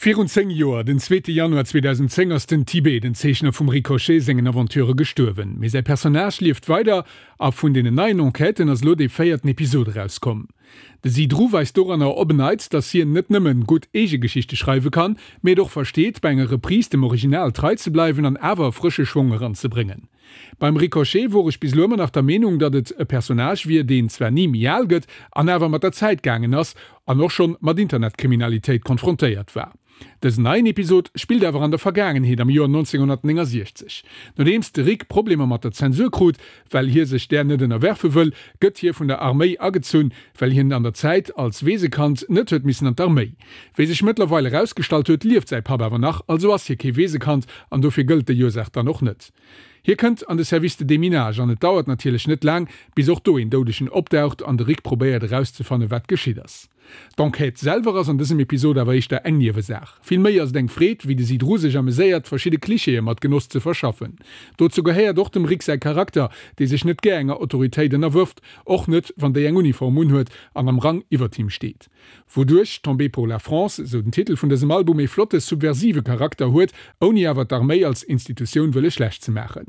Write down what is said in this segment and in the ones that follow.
Virun 10 Joer, den zweete Januar 2010, ass den Tibet, den Zeechner vum Ricochet sengen Aventurë gestuerwen. Mee säi Personnage lieft weider a vun deenen neien Enquêten ass elo dee véierten Episod erauskomm. De Zidrou weist doranner op en Neits, datt hien net nëmmen gutt eege Geschichte schreiwe kann, mee et och versteet, bei enger Reprise dem Original trei ze bleiwen an awer e frësche Schwong eranzebréngen. Beim Ricochet wor ech bis elo ëmmer nach der Meenung, datt et e Personnage wier, deen zwar ni méi al gëtt an awer mat der Zäit gaangen ass an och schonn mat Internetkriminalitéit konfrontéiert war. Dësen neien Episod spillt awer an der Vergaangenheet, am Joer 1969. Nodeems de Rick Problemer mat der Zensur krut, well hie sech där net ënnerwerfe wëll, gëtt hie vun der Arméi agezunn, well hien an der Zäit als Weesekand net huet missen an d'Arméi. Wéi sech mëttlerweil erausgestallt huet, lieft säi Papp awer nach, also ass hie kee Weesekand an dofir gëllt déi Ursaach dann och net. Hie kënnt an de Service de déminage an et dauert natierlech net laang, bis och do een Doudegen opdaucht an de Rick probéiert erauszefannen, wat geschitt ass. D'Enquête selwer ass an dësem Episod awer éischter eng Niewesaach. Vill méi ass et eng Freed, wéi de Zidrou sech ameséiert, verschidde Klischeeë mat Genoss ze verschaffen. Dozou gehéiert och dem Rick säi Charakter, dee sech net gär enger Autoritéit ënnerwërft, och net, wann déi eng Uniform unhuet an am Rang iwwert him steet. Wouduerch Tombé pour la France, esou den Titel vun dësem Album, ee flotte subversive Charakter huet, ouni awer d'Arméi als Institutioun wëlle schlecht ze maachen.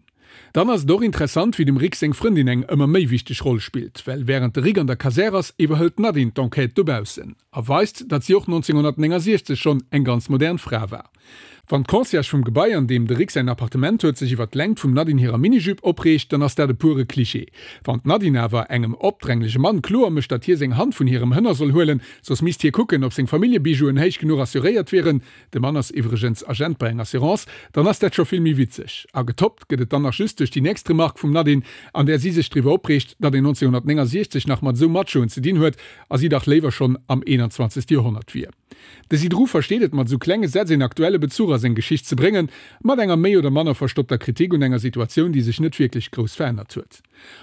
Dann ass et och interessant, wéi dem Rick seng Frëndin eng ëmmer méi wichteg Roll spillt, well wärend de Rick an der Kasär ass, iwwerhëlt d'Nadine d'Enquête dobaussen a weist, datt si och 1969 schonn eng ganz modern Fra war. Wann d'Concierge vum Gebai, an deem de Rick säin Appartement huet, sech iwwer d'Längt vum Nadine hirer Minijupe opreegt, dann ass dat e pure Klischee. Wann d'Nadine awer engem opdränglege Mann kloer mécht, datt hie seng Hand vun hirem Hënner soll huelen, soss misst hie kucken, ob seng Familljebijouen héich genuch assuréiert wieren, de Mann ass iwwregens Agent bei enger Assurance, dann ass dat scho vill méi witzeg. A getoppt gëtt et dann nach just duerch déi nächst Remark vum Nadine, an där si sech driwwer opreegt, datt een 1969 nach mat esou Machoen ze dinn huet a si dach léiwer schonn am 21. Joerhonnert wier. De Zidrou versteet et mat esou klenge Sätz een aktuelle Bezuch a seng Geschicht ze bréngen, mat enger méi oder manner verstoppter Kritik un enger Situatioun, déi sech net wierklech grouss verännert huet.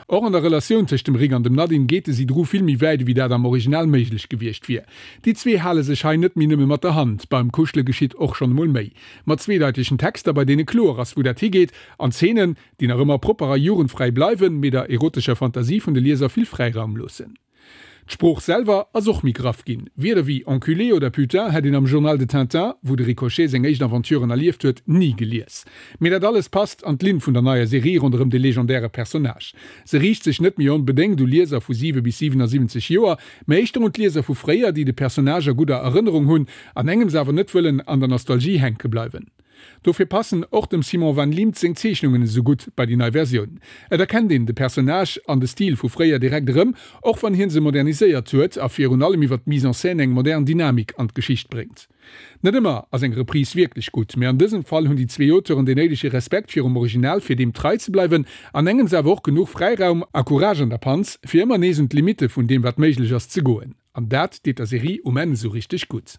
Och an der Relatioun tëscht dem Rick an dem Nadine geet de Zidrou vill méi wäit ewéi dat am Original méiglech gewiescht wier. Déi zwee hale sech hei net méi nëmme mat der Hand, beim Kuschele geschitt och schonn emol méi. Mat zweedeitegen Texter, bei deene kloer ass wou dat higeet, an Zeenen, déi nach ëmmer propper a jugendfräi bleiwen, mee der erotescher Fantasie vun de Lieser vill Fräiraum loossen. D'Sprooch selwer ass och méi graff ginn. Wierder wéi enculé oder putain hätt een am Journal de Tintin, wou de Ricochet seng éischt Aventuren erlieft huet, ni gelies. Mee dat alles passt an d'Linn vun der neier Serie ronderëm de legendäre Personnage. Se riicht sech net méi onbedéngt u Lieser vu 7 bis 77 Joer, mä éischter un d'Lieser vu fréier, déi de Personnage a gudder Erënnerung hunn, an engems awer net wëllen an der Nostalgie hänke bleiwen. Dofir passen och dem Simon Van Liemt seng Zeechnungen esou gutt bei déi nei Versioun. Et erkennt een de Personnage an de Stil vu fréier direkt erëm, och wann hien se moderniséiert huet a virun allem iwwer d'Mise en scène eng modern Dynamik an d'Geschicht bréngt. Net ëmmer ass eng Reprise wierklech gutt, mee an dësem Fall hunn déi zwee Auteuren deen néidege Respekt virum Original fir deem trei ze bleiwen, an engems awer och genuch Fräiraum a Courage an der Panz, fir ëmmer nees un d'Limitte vun deem wat méiglech ass ze goen. An dat deet der Serie um Enn esou richteg gutt.